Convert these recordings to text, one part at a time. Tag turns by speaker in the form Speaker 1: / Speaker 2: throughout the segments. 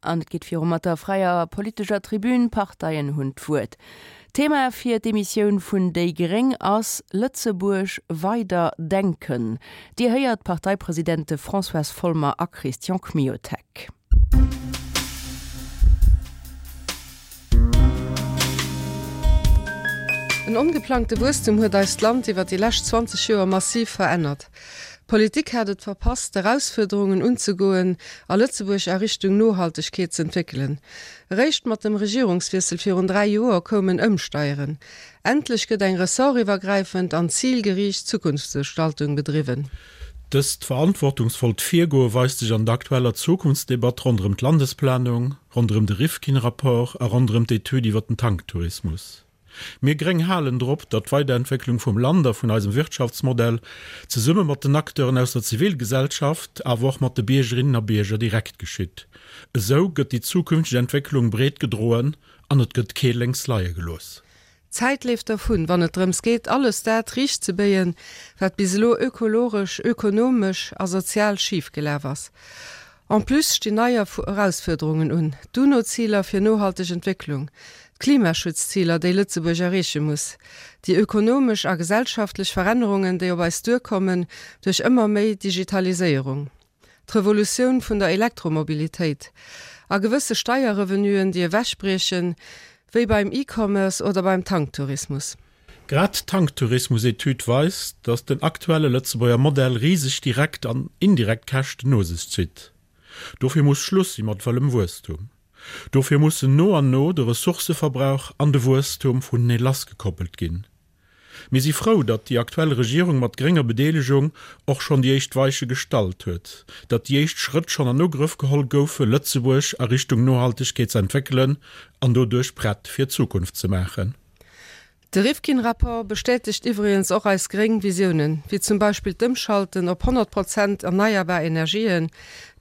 Speaker 1: An et geet viru mat der fräier politescher Tribün, Parteien hunn d'Wuert. Thema fir d'Emissioun vun déi gréng ass Lëtzebuerg weider denken. Dir héiert d'Parteipresidente Françoise Folmer a Christian Kmiotek.
Speaker 2: En ongeplangte Wuesstum huet eist Land iwwer déi lescht 20 Joer massiv verännert. D'Politik hat et verpasst, d'Erausfuerderungen unzegoen a Lëtzebuerg a Richtung Nohaltegkeet z'entwéckelen. Eréischt mat dem Regierungswiessel virun 3 Joer koum en Ëmsteieren. Endlech gëtt eng ressortiwwergräifend an zilgeriicht Zukunftsgestaltung bedriwwen.
Speaker 3: Dëst verantwortungsvollt Virgoe weist sech an der aktueller Zukunftsdebatt ronderëm d'Landesplanung, ronderëm de Rifkin-Rapport a ronderëm d'Etüd iwwer den Tanktourismus. Mir Gréng halen drop, datt d'Weiderentwécklung vum Land a vun eisem Wirtschaftsmodell zesumme mat den Acteuren aus der Zivilgesellschaft, awer och mat de Biergerinnen a Bierger direkt geschitt. Esou gëtt déi zukünfteg Entwécklung breet gedroen an et gëtt kee lénks leie gelooss.
Speaker 2: D'Zäit leeft dervun, wann et drëms geet, alles dat riichtzebéien, wat bis elo ökologesch, ökonomesch a sozial schif gelaf ass. En plus stinn nei Erausfuerderungen un, d'UNO-Ziler fir nohalteg Entwécklung, d'Klimaschutzziler, déi Lëtzebuerg erreeche muss, déi ökonomesch a gesellschaftlech Verännerungen, déi op eis duerkommen duerch ëmmer méi Digitaliséierung. d'Revolutioun vun der Elektromobilitéit a gewësse Steierrevenuen, déi ewechbriechen, wéi beim E-Commerce oder beim Tanktourismus.
Speaker 3: Grad d'Tanktourismus-Etüd weist, datt den aktuelle Lëtzebuerger Modell riseg direkt an indirekt Käschten no sech zitt. Dofir muss Schluss si mat wëllem Wuesstum. Dofir mussen no an no de Ressourcëverbrauch an de Wuesstum vunenee lassgekoppelt ginn. Mir si frou, datt déi aktuell Regierung mat grénger Bedeelegung och schonn déi éischt Weiche gestallt huet, datt déi éischt Schrëtt schonn an Ugrëff geholl goufe Lëtzebuerg a Richtung Nohaltegkeet ze entwéckelen an doduerch prett fir d'Zukunft ze maachen.
Speaker 2: De Rifkin-Rapport bestätegt iwwregens och eis gréng Visiounen, wéi zum Beispill d'Ëmschalten op 100 Prozent erneierbar Energien,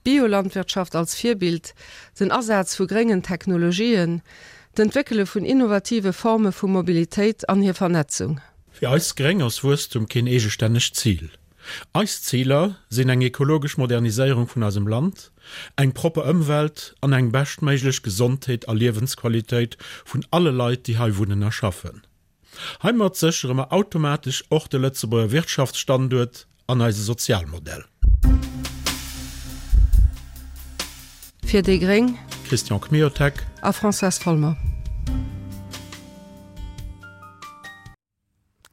Speaker 2: d'Biolandwirtschaft als Virbild, den Asaz vu gréngen Technologien, D'Entwéckele vun innovative Forme vu Mobilitéit an hir Vernetzung.
Speaker 3: Fir eis Gréng ass Wuesstum keen eegestännegt Zil. Eis Ziler sinn eng ekologesch Moderniséierung vun eisem Land, eng propper Ëmwelt an eng beschtméiglech Gesondheet a Liewensqualitéit vun alle Leit, déi hei wunnen a schaffen. Heimat séchere mer automatesch och de Lëtzebuerger Wirtschaftsstanduert an eise Sozialmodell.
Speaker 2: Fir déi gréng.
Speaker 3: Christian Kmiotek.
Speaker 2: A Françoise Folmer.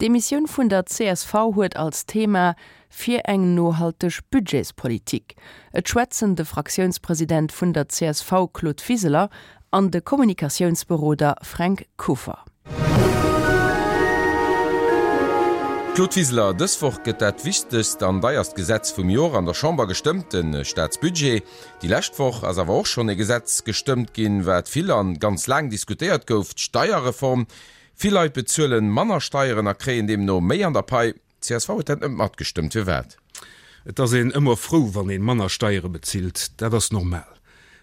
Speaker 1: D'Emissioun vun der csv huet als Thema Fir eng nohalteg Budgetspolitik. Et schwätzen de Fraktiounspresident vun der csv Claude Wiseler an de Kommunikatiounsberoder Fränk Kuffer.
Speaker 4: Claude Wiseler, dës Woch gëtt dat wichtegst an deierst Gesetz vum Jor an der Chamber gestëmmt, de Staatsbudget. Déi lescht Woch ass awer och schonn e Gesetz gestëmmt ginn, wat vill an ganz laang diskutéiert gouf, d'Steierreform. Vill Leit bezuelen manner Steieren a kréien deemno méi an der Pai. Csv huet dat net matgestëmmt. Firwat?
Speaker 5: Et ass een ëmmer frou, wann ee manner Steiere bezilt. Dat ass normal.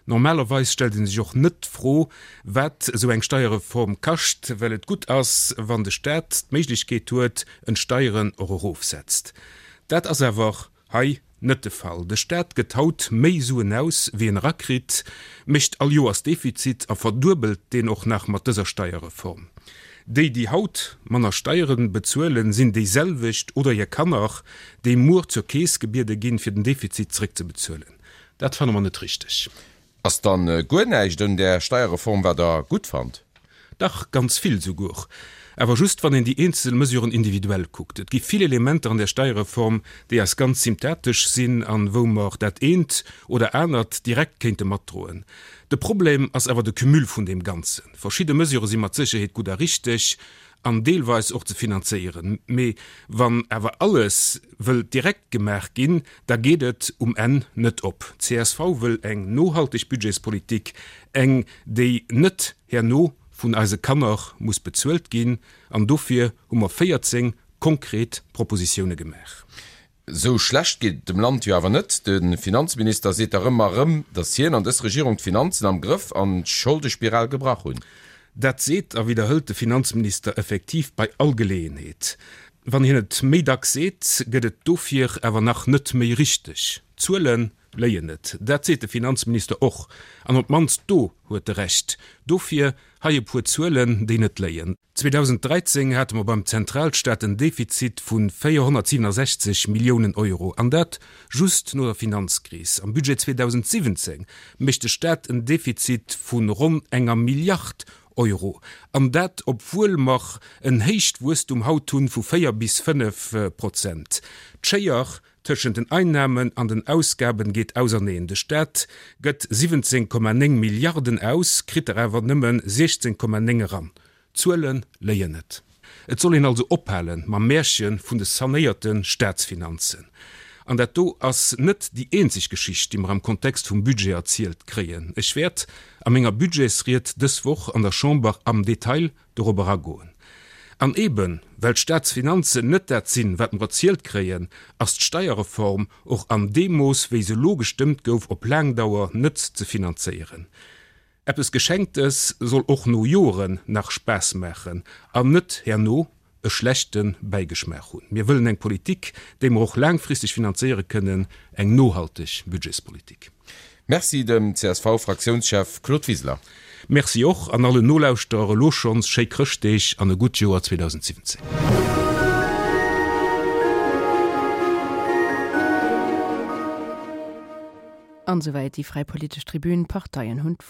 Speaker 5: Normalerweis stellt ee sech och net d'Fro, wat esou eng Steierreform kascht, well et gutt ass, wann de Staat d'Méiglechkeet huet, en d'Steieren och erofsetzt. Dat ass awer Hei net de Fall. De Staat gëtt haut méi Suen aus, wéi en erakritt, mécht all Joers Defizit a verduebelt deen och nach mat dëser Steierreform. Déi, déi haut manner Steiere bezuelen, sinn déiselwecht oder hir Kanner, déi muer zur Keess gebiede ginn, fir den Defizit zréckzebezuelen. Dat fanne mer net richteg.
Speaker 4: Ass dann guer näischt un där Steierreform wat der gutt fannt?
Speaker 5: Dach, ganz vill souguer. Awer just wann een déi eenzel Mesuren individuell kuckt. Et gi vill Elementer an där Steierreform, déi eis ganz symptatesch sinn an wou mer dat eent oder anert direkt kéinte matdroen. De Problem ass awer de Cumul vun deem Ganzen. Verschidde Mesurë si mat Sécherheet gutt a richteg, an deelweis och ze finanzéieren. Mee wann awer alles wëllt direkt gemaach ginn, da geet et um Enn net op. Csv wëll eng nohalteg Budgetspolitik, eng déi net herno vun eise Kanner muss bezuelt ginn. An dofir hu mer 14 konkret Propositioune gemaach.
Speaker 4: Esou schlecht geet et dem Land jo awer net. De Finanzminister seet dach ëmmer erëm, datt hien an dës Regierung d'Finanzen am Grëff an d'Scholdespiral gebrach hunn.
Speaker 5: Dat seet a widderhëlt de Finanzminister effektiv bei all Geleeënheet. Wann hien et méi dacks seet, gëtt et dofir awer nach net méi richteg. D'Zuele léien net. Dat seet de Finanzminister och. An op d'mannst do huet e Recht. Dofir hei e puer Zuelen, déi net léien. 2013 hate mer beim Zentralstaat en Defizit vu 467 Milliounen Euro, an dat just no der Finanzkris. Am Budget 2017 mécht de Staat en Defizit vu ronn enger Milliard Euro, an dat obwuel mer en héicht Wuesstum haut hunn vu 4 bis 5 Prozent. D'Schéier tëschent den Einnamen an den Ausgaben geet auserneen. De Staat gëtt 17,9 Milliarden aus, kritt der awer nëmme 16,9 eran. D'Zuele léien net. Et soll een also ophale mam Märche vun de sanéierte Staatsfinanzen. An dat do ass net déi eenzeg Geschicht, déi mer am Kontext vum Budget erzielt kréien. Ech wäert a menger Budgetsried dës Woch an der Chamber am Detail dorop eragoen. An eeben, well d'Staatsfinanzen net dat sinn, wat mer erzielt kréien, ass d'Steierreform och an deem Mooss, wéi se elo gestëmmt gouf, op laang Dauer net ze finanzéieren. Eppes Geschenktes soll och no Joren nach Spaass maachen an net herno e schlechte Bäigeschmaach hunn. Mir wëllen eng Politik, déi mer och laangfristeg finanzéiere kënnen, eng nohalteg Budgetspolitik.
Speaker 4: Merci dem CSV-Fraktiounschef Claude Wiseler.
Speaker 5: Merci och an allen Nolauschterer elo schonns schéi Chrëschtdeeg an e gutt Joer 2017.
Speaker 1: An esouwäit déi fräi politesch Tribün. D'Parteien hunn d'Wuert.